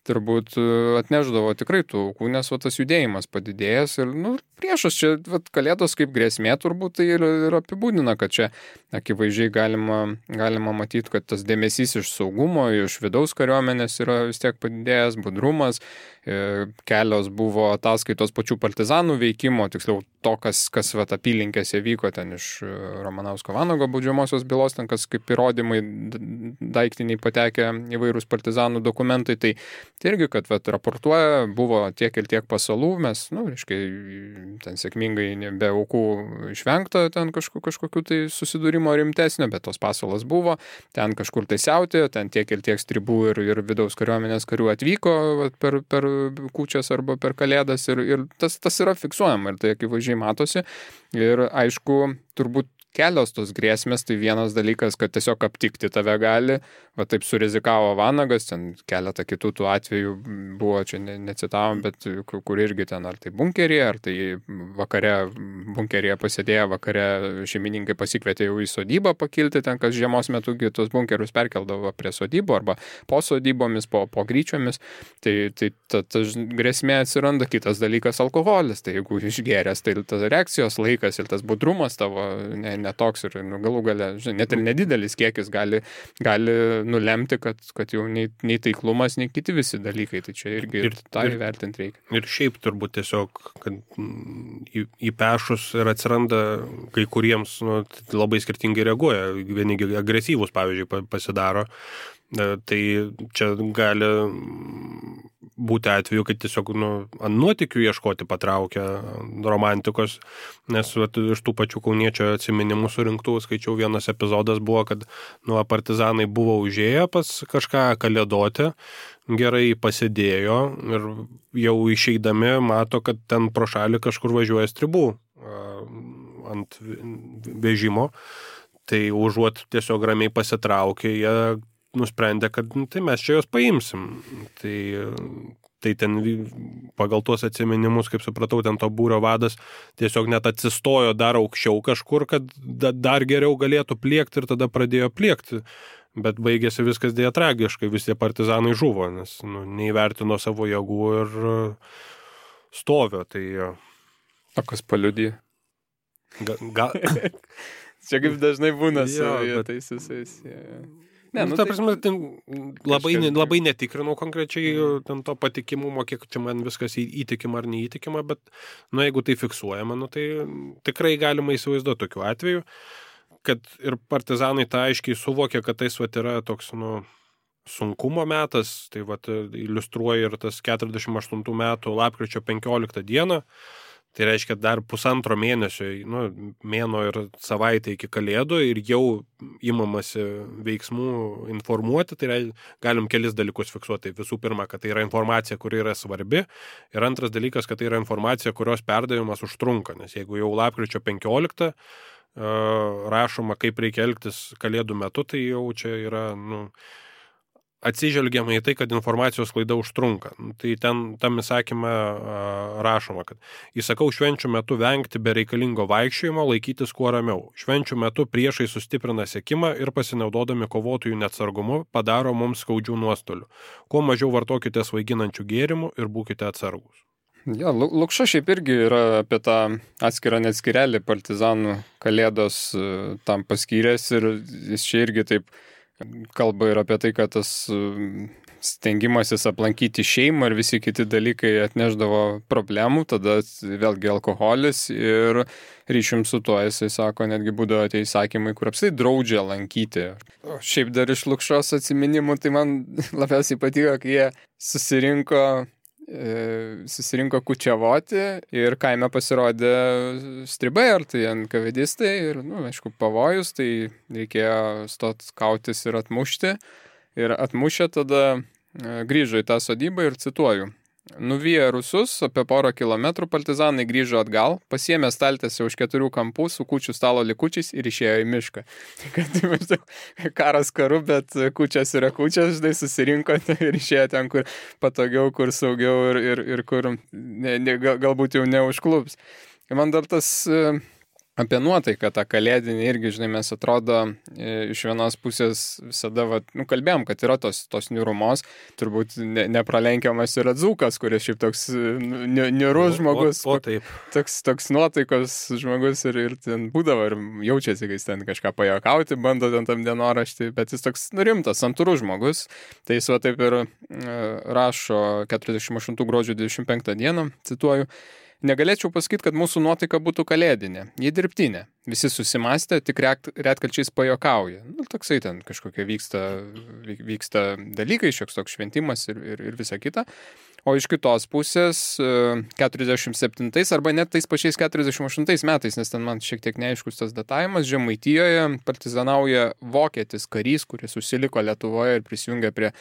turbūt atneždavo tikrai tų aukų, nes tas judėjimas padidėjęs ir priešas čia Kalėdos kaip grėsmė turbūt tai ir apibūdina, kad čia akivaizdžiai galima matyti, kad tas dėmesys iš saugumo, iš vidaus kariuomenės yra vis tiek padidėjęs, budrumas, kelios buvo ataskaitos pačių partizanų veikimo, tiksliau to, kas apylinkėse vyko ten iš Ramanausko Vanago baudžiamosios bylos, ten kas kaip įrodymai daiktiniai patekę įvairūs partizanų dokumentai, tai irgi, kad raportuoja, buvo tiek ir tiek pasalų, mes, ten sėkmingai be aukų išvengta ten kažkokių tai susidūrimo rimtesnio, bet tos pasalas buvo, ten kažkur tai siautė, ten tiek ir tiek stribų ir vidaus kariuomenės karių atvyko per kūčias arba per Kalėdas ir tas yra fiksuojama ir tai akivaizdžiai matosi ir aišku, turbūt kelios tos grėsmės, tai vienas dalykas, kad tiesiog aptikti tave gali, va taip surizikavo Vanagas, ten keletą kitų tų atvejų buvo, čia necitavom, bet kur irgi ten ar tai bunkeryje, ar tai vakare bunkeryje pasėdėję, vakare šeimininkai pasikvietė jau į sodybą pakilti, ten kas žiemos metu tos bunkerius perkeldavo prie sodybų arba po sodybomis, po gryčiomis, tai ta grėsmė atsiranda. Kitas dalykas alkoholis, tai jeigu išgėręs, tai tas reakcijos laikas ir tas budrumas tavo netoks ir galų gale, net ir nedidelis kiekis gali nulemti, kad jau nei taiklumas, nei kiti visi dalykai. Tai čia irgi tą įvertinti reikia. Ir šiaip turbūt tiesiog, kad įpešus ir atsiranda kai kuriems labai skirtingai reaguoja. Vieni agresyvūs, pavyzdžiui, pasidaro. Tai čia gali būti atveju, kad tiesiog ant nuotykių ieškoti patraukia romantikos, nes iš tų pačių kauniečio atsiminimų surinktų, skaičiau, vienas epizodas buvo, kad partizanai buvo užėję pas kažką kalėdoti, gerai pasėdėjo ir jau išeidami mato, kad ten pro šalį kažkur važiuoja stribų ant vežimo, tai užuot tiesiog ramiai pasitraukė, jie nusprendė, kad tai mes čia jos paimsim. Tai ten pagal tuos atsiminimus, kaip supratau, ten to būrio vadas tiesiog net atsistojo dar aukščiau kažkur, kad dar geriau galėtų pliekti ir tada pradėjo pliekti. Bet baigėsi viskas dėja tragiškai, visi partizanai žuvo, nes neįvertino savo jėgų ir stovio. Tai... O kas paliudė? Gal... Čia kaip dažnai būna su tais visais. Ne, ta prasme, labai netikrinau konkrečiai ten to patikimumo, kiek čia man viskas įtikima ar neįtikima, bet jeigu tai fiksuojama, tai tikrai galima įsivaizduoti tokiu atveju, kad ir partizanai tą aiškiai suvokė, kad tai yra toks sunkumo metas, tai iliustruoja ir tas 48 metų lapkričio 15 dieną. Tai reiškia dar pusantro mėnesio, mėno ir savaitę iki kalėdų ir jau imamasi veiksmų informuoti, tai galim kelis dalykus fiksuoti. Visų pirma, kad tai yra informacija, kuri yra svarbi, ir antras dalykas, kad tai yra informacija, kurios perdavimas užtrunka, nes jeigu jau lapkričio 15 rašoma, kaip reikia elgtis kalėdų metu, tai jau čia yra, atsižvelgiama į tai, kad informacijos klaida užtrunka. Tai tam įsakyme rašoma, kad įsakau švenčių metu vengti bereikalingo vaikščiojimo, laikytis kuo ramiau. Švenčių metu priešai sustiprina sekimą ir pasinaudodami kovotojų neatsargumu padaro mums skaudžių nuostolių. Kuo mažiau vartokite svaiginančių gėrimų ir būkite atsargūs. Ja, Lukša šiaip irgi yra apie tą atskirą neatskirelį partizanų kalėdos tam paskyręs ir jis čia irgi taip kalba ir apie tai, kad tas stengimasis aplankyti šeimą ir visi kiti dalykai atneždavo problemų, tada vėlgi alkoholis ir ryšium su tuo, jisai sako, netgi būdavo tie įsakymai, kur apsai draudžia lankyti. O šiaip dar iš Lukšos atsiminimų, tai man labiausiai patiko, kai jie susirinko kučiavoti ir kaime pasirodė stribai ar tai NKVDistai ir, aišku, pavojus, tai reikėjo stot kautis ir atmušti. Ir atmušę tada grįžo į tą sodybą ir cituoju. Nuvyję rusus apie porą kilometrų partizanai grįžo atgal, pasiėmė staltiesę už 4 kampų su kūčių stalo likučiais ir išėjo į mišką. Kad karas karu, bet kūčias yra kūčias, žinai, susirinko ir išėjo ten, kur patogiau, kur saugiau ir kur galbūt jau neužklups. Ir man dar tas apie nuotaiką tą kalėdinį irgi, žinai, mes atrodo iš vienos pusės visada, kalbėjom, kad yra tos niūrumos, turbūt nepralenkiamas yra Dzūkas, kuris šiaip toks niūrus žmogus, toks nuotaikos žmogus ir ten būdavo ir jaučiasi, kai jis ten kažką pajuokauti, bando ten tam dienoraštį, bet jis toks rimtas, santūrus žmogus, tai jis taip ir rašo 48 gruodžio 25 dieną, cituoju, negalėčiau pasakyti, kad mūsų nuotaika būtų kalėdinė, jį dirbtinė. Visi susimastė, tik retkarčiais pajokauja. Toksai ten kažkokie vyksta dalykai, šioks toks šventimas ir visa kita. O iš kitos pusės 47 arba net tais pačiais 48 metais, nes ten man šiek tiek neaiškus tas datavimas, Žemaitijoje partizanauja vokietis karys, kuris užsiliko Lietuvoje ir prisijungė prie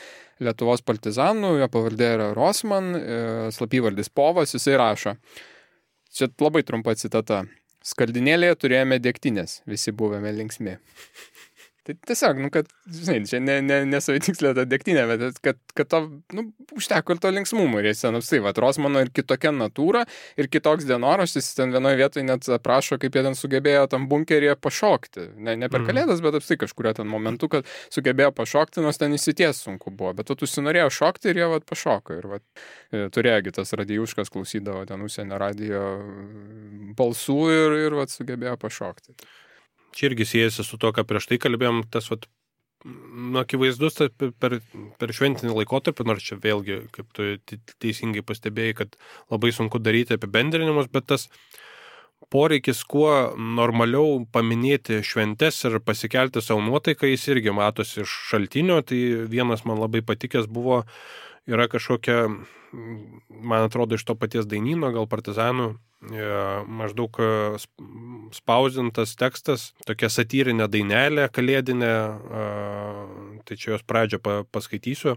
Lietuvos partizanų, jo pavardė yra Rosman, slapyvardis Povas, jisai rašo. Čia labai trumpa citata. Skaldinėlėje turėjome degtinės, visi buvome linksmi. Tai tiesiog, kad, žinai, čia nesavitikslė ta degtinė, bet kad to, užteko ir to linksmumo. Ir jis ten, Rosmano ir kitokia natūra, ir kitoks dienoraštis, ten vienoje vietoje net aprašo, kaip jie ten sugebėjo tam bunkeryje pašokti. Ne per kalėdas, bet apstai kažkurio ten momentu, kad sugebėjo pašokti, nors ten įsities sunku buvo. Bet tu užsinorėjo šokti ir jie pašoko. Ir turėjo tas Radijuškas klausydavo ten užsienio radijo balsų ir sugebėjo pašokti. Čia irgi siejasi su to, ką prieš tai kalbėjom, tas akivaizdus per šventinį laikotarpį, nors čia vėlgi, kaip tu teisingai pastebėjai, kad labai sunku daryti apibendrinimus, bet tas poreikis kuo normaliau paminėti šventes ir pasikelti savo nuotaiką, jis irgi matosi iš šaltinio. Tai vienas man labai patikęs yra kažkokia, man atrodo, iš to paties dainyno, gal partizanų, maždaug spausdintas tekstas, tokia satyrinė dainelė kalėdinė, tai čia jos pradžią paskaitysiu.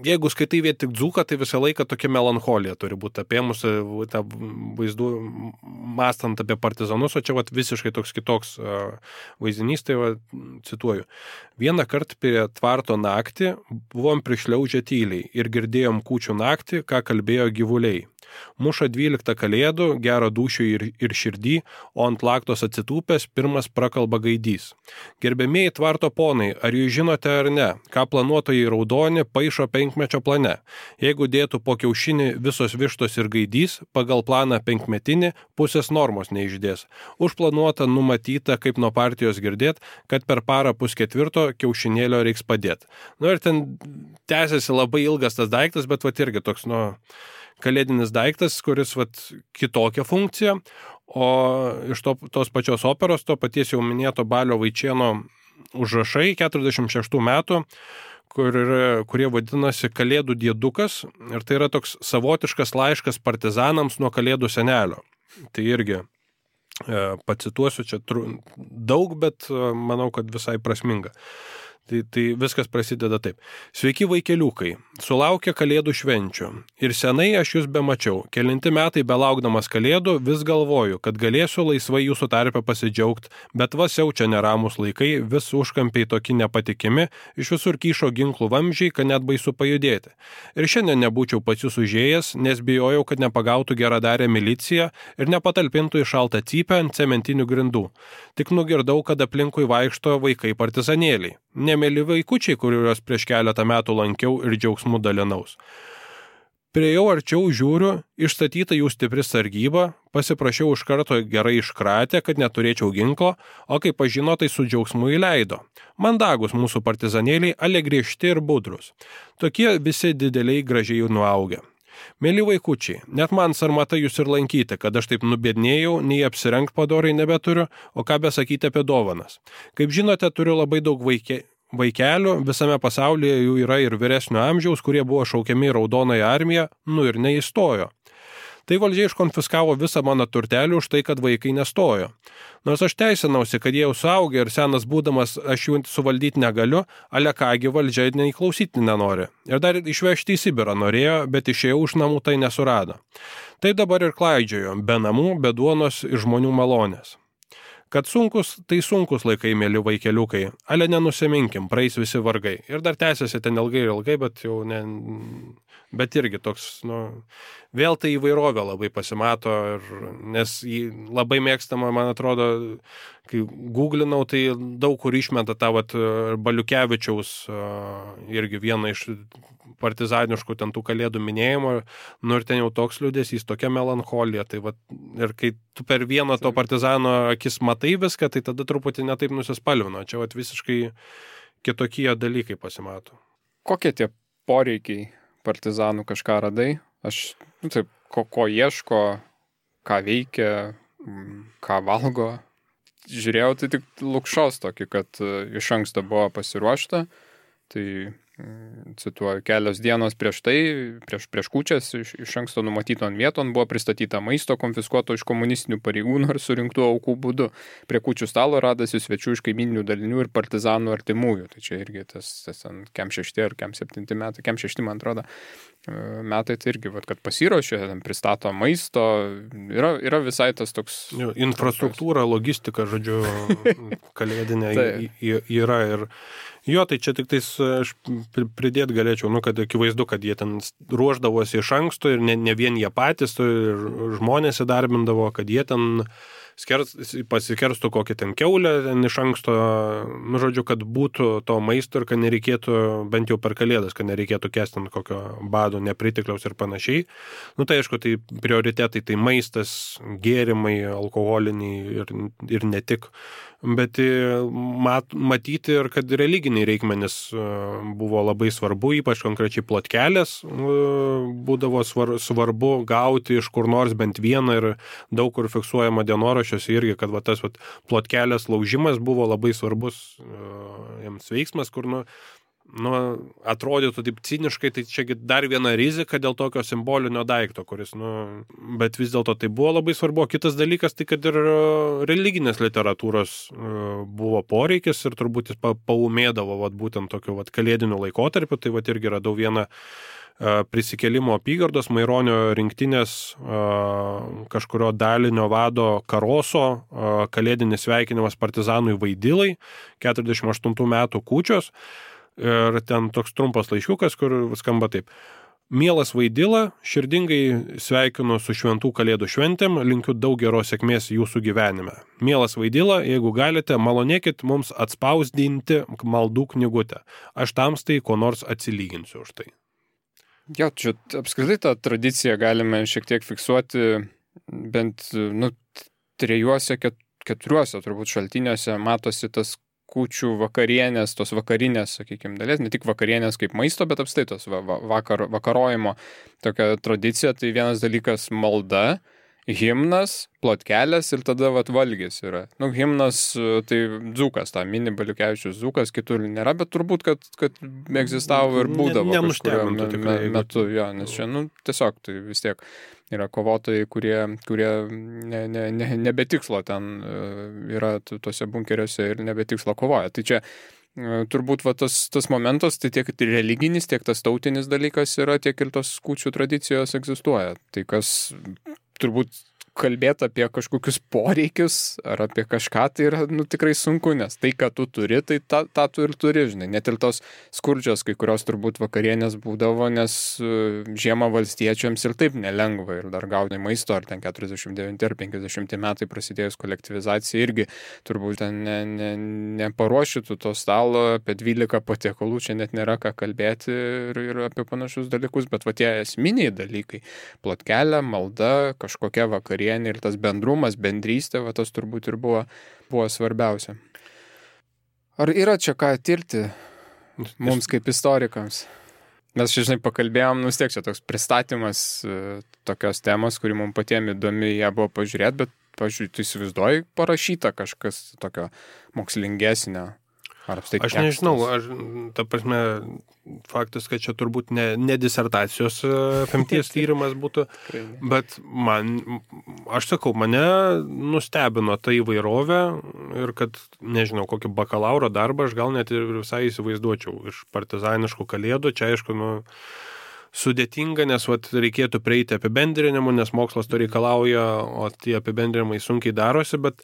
Jeigu skaitai vien tik dzūką, tai visą laiką tokia melancholija turi būti apėmusi tą vaizdų, mąstant apie partizanus, o čia visiškai toks kitoks vaizdinys, tai cituoju. Vieną kartą prie tvarto naktį buvom prišliaužę tyliai ir girdėjom kūčių naktį, ką kalbėjo gyvuliai. Muša 12 kalėdų, gero dūšių ir širdį, o ant laktos atsitūpęs pirmas prakalba gaidys. Gerbėmieji tvarto ponai, ar jūs žinote ar ne, ką planuotojai raudoni paišo 5-mečio plane? Jeigu dėtų po kiaušinį visos vištos ir gaidys, pagal planą 5-metinį pusės normos neišdės. Užplanuota numatyta, kaip nuo partijos girdėt, kad per parą 3/4 kiaušinėlio reiks padėti. Ir ten tęsiasi labai ilgas tas daiktas, bet irgi toks, kalėdinis daiktas, kuris kitokią funkciją, o iš tos pačios operos, to paties jau minėto Balio Vaičėno užrašai 46 metų, kurie vadinasi Kalėdų diedukas, ir tai yra toks savotiškas laiškas partizanams nuo Kalėdų senelio. Tai irgi pacituosiu čia daug, bet manau, kad visai prasminga. Tai viskas prasideda taip. Sveiki vaikeliukai, sulaukia Kalėdų švenčių. Ir senai aš jūs bemačiau. Kelinti metai belaukdamas Kalėdų vis galvoju, kad galėsiu laisvai jūsų tarpe pasidžiaugti, bet siaučia neramus laikai, vis užkampiai tokie nepatikimi, iš visur kyšo ginklų vamzdžiai, kad net baisu pajudėti. Ir šiandien nebūčiau pas jūs užėjęs, nes bijojau, kad nepagautų geradarę miliciją ir nepatalpintų į šaltą cypę ant cementinių grindų. Tik nugirdau, kad aplinkui vaikšto vaikai partizanėliai. Nemėly vaikučiai, kuriuos prieš keletą metų lankiau ir džiaugsmų dalinaus. Priejau arčiau, žiūriu, išstatyta jų stipri sargyba, pasiprašiau iš karto gerai iškratę, kad neturėčiau ginklo, o kai pažino, tai su džiaugsmu įleido. Mandagus mūsų partizanėliai, ale griežti ir budrus. Tokie visi dideliai gražiai nuaugę. Mėly vaikučiai, net man sarmata jūs ir lankyti, kad aš taip nubėdnėjau, nei apsirengt padorai nebeturiu, o ką besakyti apie dovanas. Kaip žinote, turiu labai daug vaikelių, visame pasaulyje jų yra ir vyresnio amžiaus, kurie buvo šaukiami į Raudonąją armiją, ir neįstojo. Tai valdžia iškonfiskavo visą mano turtelį už tai, kad vaikai nestojo. Nors aš teisinausi, kad jie jau suaugę ir senas būdamas aš jų suvaldyti negaliu, ale kągi valdžia neįklausyti nenori. Ir dar išvežti į Sibirą norėjo, bet išėjau už namų tai nesurado. Tai dabar ir klaidžiojo, be namų, be duonos ir žmonių malonės. Kad sunkus, tai sunkus laikai, mėly vaikeliukai, ale nenusiminkim, praeis visi vargai. Ir dar tęsiasi ten ilgai, bet jau ne... Bet irgi toks, vėl tai įvairovė labai pasimato, nes jį labai mėgstama, man atrodo, kai googlinau, tai daug kur išmeta tą Baliukevičiaus irgi vieną iš partizaniškų ten tų kalėdų minėjimo, ir ten jau toks liūdesys, tokia melancholija, tai ir kai tu per vieną to partizano akis matai viską, tai tada truputį netaip nusispalvino, čia visiškai kitokie dalykai pasimato. Kokie tie poreikiai partizanų, kažką radai? Aš, ko ieško, ką veikia, ką valgo. Žiūrėjau, tai tik Lukšos tokį, kad iš anksto buvo pasiruošta. Tai cituoju, kelios dienos prieš tai, prieš kūčias iš anksto numatyton vieton buvo pristatyta maisto konfiskuoto iš komunistinių pareigūnų ir surinktų aukų būdu. Prie kūčių stalo radasi svečių iš kaimyninių dalinių ir partizanų artimųjų. Tai čia irgi tas kem 6 ar kem 7 metai, kem 6 man atrodo metai, tai irgi, kad pasiruošė, pristato maisto, yra visai tas toks... Infrastruktūra, logistika, žodžiu, kalėdinė yra ir... Jo, tai čia tik tais aš pridėti galėčiau, kad akivaizdu, kad jie ten ruoždavosi iš anksto ir ne vien jie patys, ir žmonės įdarbindavo, kad jie ten pasikerstų kokį ten kiaulę ten iš anksto, žodžiu, kad būtų to maisto ir kad nereikėtų, bent jau per kalėdas, kad nereikėtų kesti kokio bado, nepritikliaus ir panašiai. Tai aišku, tai prioritetai, tai maistas, gėrimai, alkoholiniai ir ne tik. Bet matyti ir kad religiniai reikmenys buvo labai svarbu, ypač konkrečiai plotkelės būdavo svarbu gauti iš kur nors bent vieną ir daug kur fiksuojama dienoraščiuose irgi, kad tas plotkelės laužimas buvo labai svarbus jiems veiksmas, kur atrodytų taip ciniškai, tai čia dar viena rizika dėl tokio simbolinio daikto, kuris, bet vis dėlto tai buvo labai svarbu. Kitas dalykas, tai kad ir religinės literatūros buvo poreikis ir turbūt jis paumėdavo būtent tokiu kalėdiniu laikotarpiu, tai irgi radau vieną prisikėlimo apygardos Maironio rinktinės kažkurio dalinio vado Karoso kalėdinis sveikinimas partizanui Vaidilai, 48 metų kūčios. Ir ten toks trumpas laiškiukas, kur skamba taip. Mielas Vaidila, širdingai sveikinu su šventų kalėdų šventėm, linkiu daug geros sėkmės jūsų gyvenime. Mielas Vaidila, jeigu galite, malonėkit mums atspausdinti maldų knygutę. Aš tamstai ko nors atsilyginsiu už tai. Jo, čia apskritai tą tradiciją galime šiek tiek fiksuoti bent 3-4 turbūt šaltiniuose matosi tas kūčių vakarienės, tos vakarinės, sakykime, dalies, ne tik vakarienės kaip maisto, bet apstai tos vakarojimo tokia tradicija. Tai vienas dalykas malda, himnas, plotkelės ir tada valgis yra. Himnas, tai Dzūkas, tą mini Baliukevičius Dzūkas, kitur nėra, bet turbūt, kad egzistavo ir būdavo kažkurio metu, jo, nes čia, tiesiog tai vis tiek yra kovotojai, kurie nebetikslo ten yra tuose bunkeriuose ir nebetikslo kovoja. Tai čia turbūt tas momentas, tai tiek religinis, tiek tas tautinis dalykas yra, tiek ir tos kūčių tradicijos egzistuoja. Tai kas turbūt kalbėti apie kažkokius poreikius ar apie kažką, tai yra tikrai sunku, nes tai, ką tu turi, tai tą tu ir turi, žinai. Net ir tos skurdžios, kai kurios turbūt vakarienės būdavo, nes žiemą valstiečiams ir taip nelengva ir dar gauti maisto, ar ten 49 ar 50 metai prasidėjus kolektyvizacija irgi turbūt ten neparuošytų to stalo, apie 12 patiekalų čia net nėra ką kalbėti ir apie panašius dalykus, bet tie esminiai dalykai, plotkelė, malda, kažkokia vakarienė ir tas bendrumas, bendrystė, tas turbūt ir buvo svarbiausia. Ar yra čia ką tirti mums kaip istorikams? Mes čia, žinai, pakalbėjom, vis tiek čia toks pristatymas tokios temos, kuri mums patiems įdomi ją buvo pažiūrėti, bet, pažiūrėjau, tu įsivaizduoji parašyta kažkas tokio mokslingesnio? Aš nežinau, ta prasme, faktas, kad čia turbūt ne disertacijos apimties tyrimas būtų, bet aš sakau, mane nustebino ta įvairovė ir kad, nežinau, kokį bakalauro darbą aš gal net ir visai įsivaizduočiau iš partizaniškų kalėdų. Čia, aišku, sudėtinga, nes reikėtų prieiti apibendrinimų, nes mokslas to reikalauja, o tie apibendrinimai sunkiai darosi, bet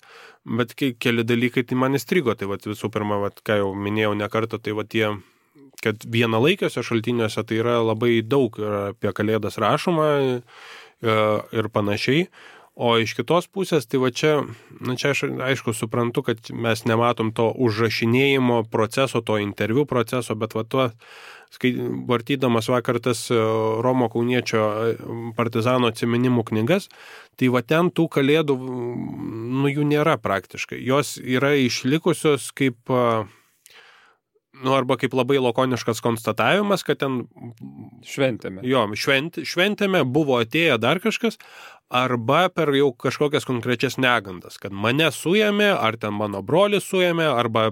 keli dalykai tai man įstrigo. Tai visų pirma, ką jau minėjau ne kartą, tai tie, kad vienalaikiuose šaltiniuose tai yra labai daug apie kalėdas rašoma ir panašiai. O iš kitos pusės, tai čia aš aišku suprantu, kad mes nematom to užrašinėjimo proceso, to interviu proceso, bet vartydamas vakar tas Romo Kauniečio partizano atsiminimų knygas, tai ten tų kalėdų, jų nėra praktiškai. Jos yra išlikusios kaip, arba kaip labai lakoniškas konstatavimas, kad ten Šventėme. Jo, šventėme, buvo atėję dar kažkas, arba per jau kažkokias konkrečias negandas, kad mane suėmė, ar ten mano brolį suėmė, arba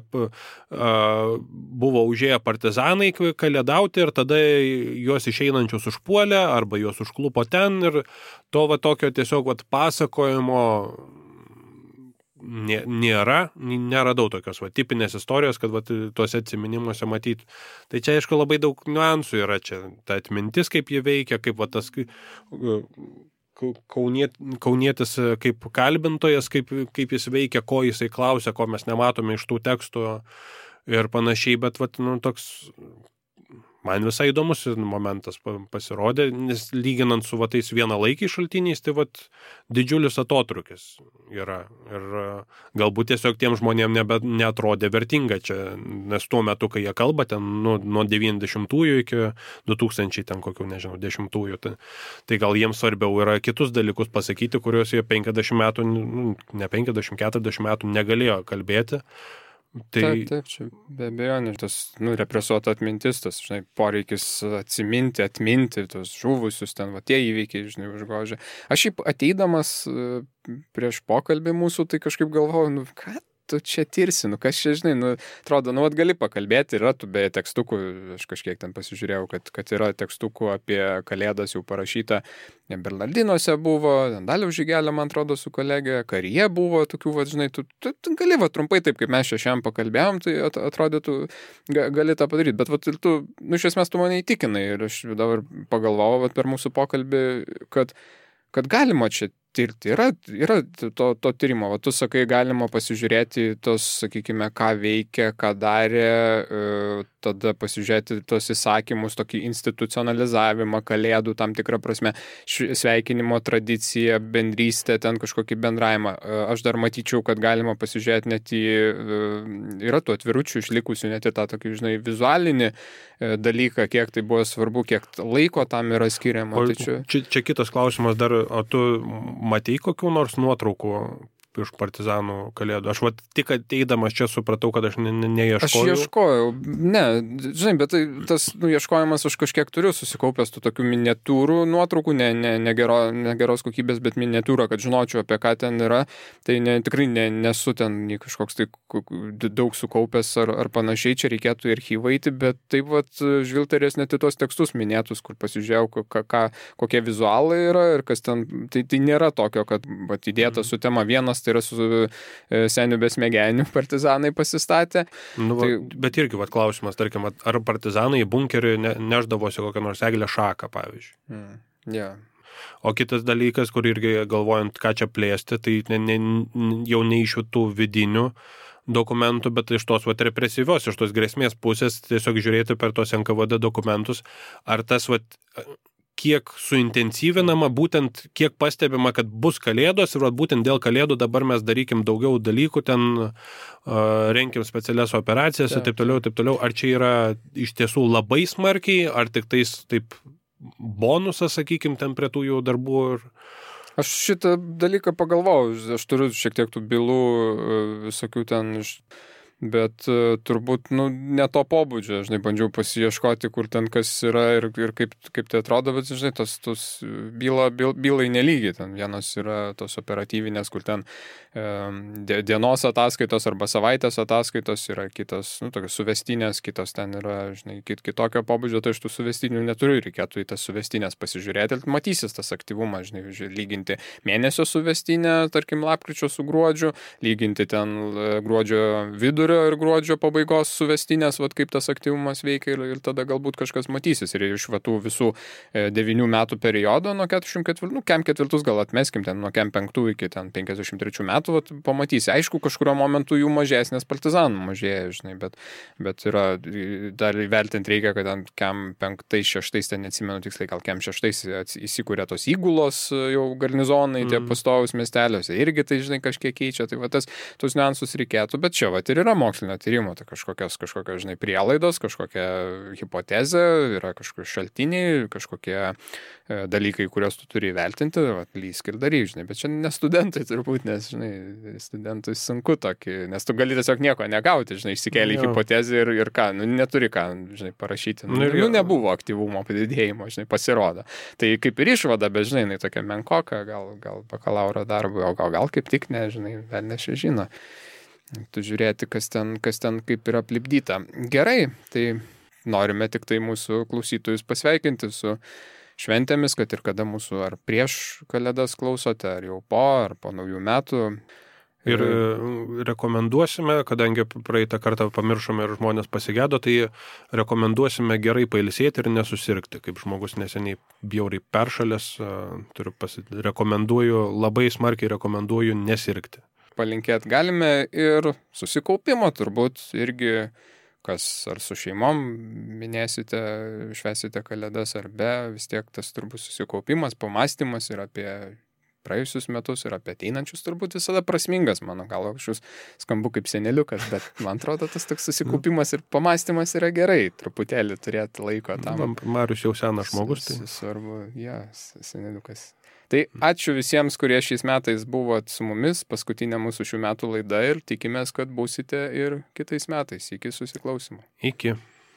buvo užėję partizanai kalėdauti ir tada juos išeinančius užpuolė, arba juos užklupo ten ir to va tokio tiesiog va pasakojimo neradau tokios va tipinės istorijos, kad va tuose atsiminimuose matyti. Tai čia, aišku, labai daug niuansų yra čia. Ta atmintis, kaip jie veikia, kaip va tas kaunietis kaip kalbintojas, kaip jis veikia, ko jisai klausia, ko mes nematome iš tų tekstų ir panašiai, bet va, toks man visai įdomus momentas pasirodė, nes lyginant su va tais vienalaikiais šaltiniais, tai va didžiulis atotrukis yra. Ir galbūt tiesiog tiem žmonėm neatrodė vertinga čia, nes tuo metu, kai jie kalba, ten nuo 90-ųjų iki 2000 ten kokių, nežinau, 10-ųjų, tai gal jiems svarbiau yra kitus dalykus pasakyti, kuriuos jie 50 metų, ne 50, 40 metų negalėjo kalbėti. Taip, čia be abejo, tas represuota atmintis, tas, poreikis atminti tos žuvusius, ten, va, tie įvykiai, užgožia. Aš šiaip ateidamas prieš pokalbį mūsų, tai kažkaip galvojau, ką tu čia tirsi, kas čia, atrodo, gali pakalbėti, yra tų beje tekstukų, aš kažkiek ten pasižiūrėjau, kad yra tekstukų apie Kalėdas jau parašyta, Bernardinuose buvo, Daliaus Žygelė, man atrodo, su kolegė, Karyje buvo tokių, tu gali, trumpai taip, kaip mes šiandien pakalbėjom, tai atrodytų, gali tą padaryti, bet tu, iš esmės tu mane įtikinai ir aš dabar pagalvojau per mūsų pokalbį, kad galima čia tirti. Yra to tyrimo. Tu sakai, galima pasižiūrėti tos, sakykime, ką veikia, ką darė, tada pasižiūrėti tos įsakymus, tokį institucionalizavimą, Kalėdų tam tikrą prasme, sveikinimo tradiciją, bendrystę, ten kažkokį bendravimą. Aš dar matyčiau, kad galima pasižiūrėti net yra tų atviručių išlikusių, net į tą tokį, vizualinį dalyką, kiek tai buvo svarbu, kiek laiko tam yra skiriama. Čia kitas klausimas dar, o tu matei kokių nors nuotraukų iš partizanų Kalėdų? Aš tik ateidamas čia supratau, kad aš neieškojau. Aš ieškojau, bet tas ieškojimas aš kažkiek turiu susikaupęs tų tokių miniatūrų nuotraukų, negeros kokybės, bet miniatūrą, kad žinočiau, apie ką ten yra. Tai tikrai nesu ten kažkoks tai daug sukaupęs ar panašiai, čia reikėtų į archyvą eiti, bet taip žvilgterės net į tuos tekstus minėtus, kur pasižiūrėjau, kokie vizualai yra ir kas ten, tai nėra tokio, kad įdėta su tema vienas, tai yra su seniu besmegeniu partizanai pasistatė. Bet irgi klausimas, tarkim, ar partizanai į bunkerį neždavosi kokią nors eglę šaką, pavyzdžiui. Yeah. O kitas dalykas, kur irgi galvojant, ką čia plėsti, tai jau ne iš tų vidinių dokumentų, bet iš tos represyvios, iš tos grėsmės pusės tiesiog žiūrėti per tos NKVD dokumentus, ar tas kiek suintensyvinama, būtent kiek pastebima, kad bus Kalėdos ir būtent dėl Kalėdų dabar mes darykim daugiau dalykų, ten renkim specialias operacijas ir taip toliau. Ar čia yra iš tiesų labai smarkiai, ar tik tais taip bonusas, sakykim, ten prie tų jų darbų? Aš šitą dalyką pagalvojau, aš turiu šiek tiek tų bylų visokių ten bet turbūt ne to pobūdžio, bandžiau pasiieškoti, kur ten kas yra ir kaip tai atrodo, bet tos bylai nelygiai, ten vienos yra tos operatyvinės, kur ten dienos ataskaitos arba savaitės ataskaitos yra kitos, tokios suvestinės, kitos ten yra, kitokio pobūdžio, tai iš tų suvestinių neturiu, reikėtų į tas suvestinės pasižiūrėti, ir matysis tas aktyvumas, lyginti mėnesio suvestinę, tarkim, lapkričio su gruodžiu, lyginti ten gruodžio vidurio ir gruodžio pabaigos suvestinės, kaip tas aktyvumas veikia ir tada galbūt kažkas matysis. Ir iš tų visų 9 metų periodo nuo 44, kem 4 gal atmeskim, ten nuo kem 5 iki ten 53 metų, pamatysi. Aišku, kažkurio momentu jų mažesnės partizanų mažėja, bet yra, dar įvertinti reikia, kad ten kem 5-6, ten neatsimenu tiksliai, gal kem 6 įsikūrė tos įgulos jau garnizonai, tie pastovus miesteliuose, irgi tai, kažkiek keičia, tai tos niuansus reikėtų, bet čia, ir yra mokslinio tyrimo, tai kažkokios, žinai, prielaidos, kažkokia hipotezė, yra kažkokie šaltiniai, kažkokie dalykai, kuriuos tu turi įvertinti, lysk ir daryk, žinai, bet čia ne studentai turbūt, nes, žinai, studentui sunku tokį, nes tu gali tiesiog nieko negauti, žinai, išsikėlė hipotezę ir ką, neturi ką, žinai, parašyti, nebuvo aktyvumo padidėjimo, žinai, pasirodo. Tai kaip ir išvada, bet, žinai, jinai tokia menkoka, gal bakalauro darbui, o gal kaip tik, nežinai, dar nežino. Tu žiūrėti, kas ten kaip yra aplipdyta. Gerai, tai norime tik tai mūsų klausytojus pasveikinti su šventėmis, kad ir kada mūsų ar prieš Kalėdas klausote, ar jau po naujų metų. Ir rekomenduosime, kadangi praeitą kartą pamiršome ir žmonės pasigėdo, tai rekomenduosime gerai pailsėti ir nesusirgti. Kaip žmogus neseniai bjauriai peršalęs, labai smarkiai rekomenduoju nesirgti. Palinkėti galime ir susikaupimo turbūt irgi, kas ar su šeimom minėsite, švęsite Kalėdas ar be, vis tiek tas turbūt susikaupimas, pamąstymas ir apie praėjusius metus ir apie ateinančius turbūt visada prasmingas, mano galva, aš skambu kaip seneliukas, bet man atrodo tas toks susikaupimas ir pamąstymas yra gerai, truputėlį turėti laiko tam. Marius jau senas žmogus. Tai svarbu, seneliukas. Tai ačiū visiems, kurie šiais metais buvot su mumis, paskutinė mūsų šių metų laida ir tikimės, kad būsite ir kitais metais. Iki susiklausimo. Iki.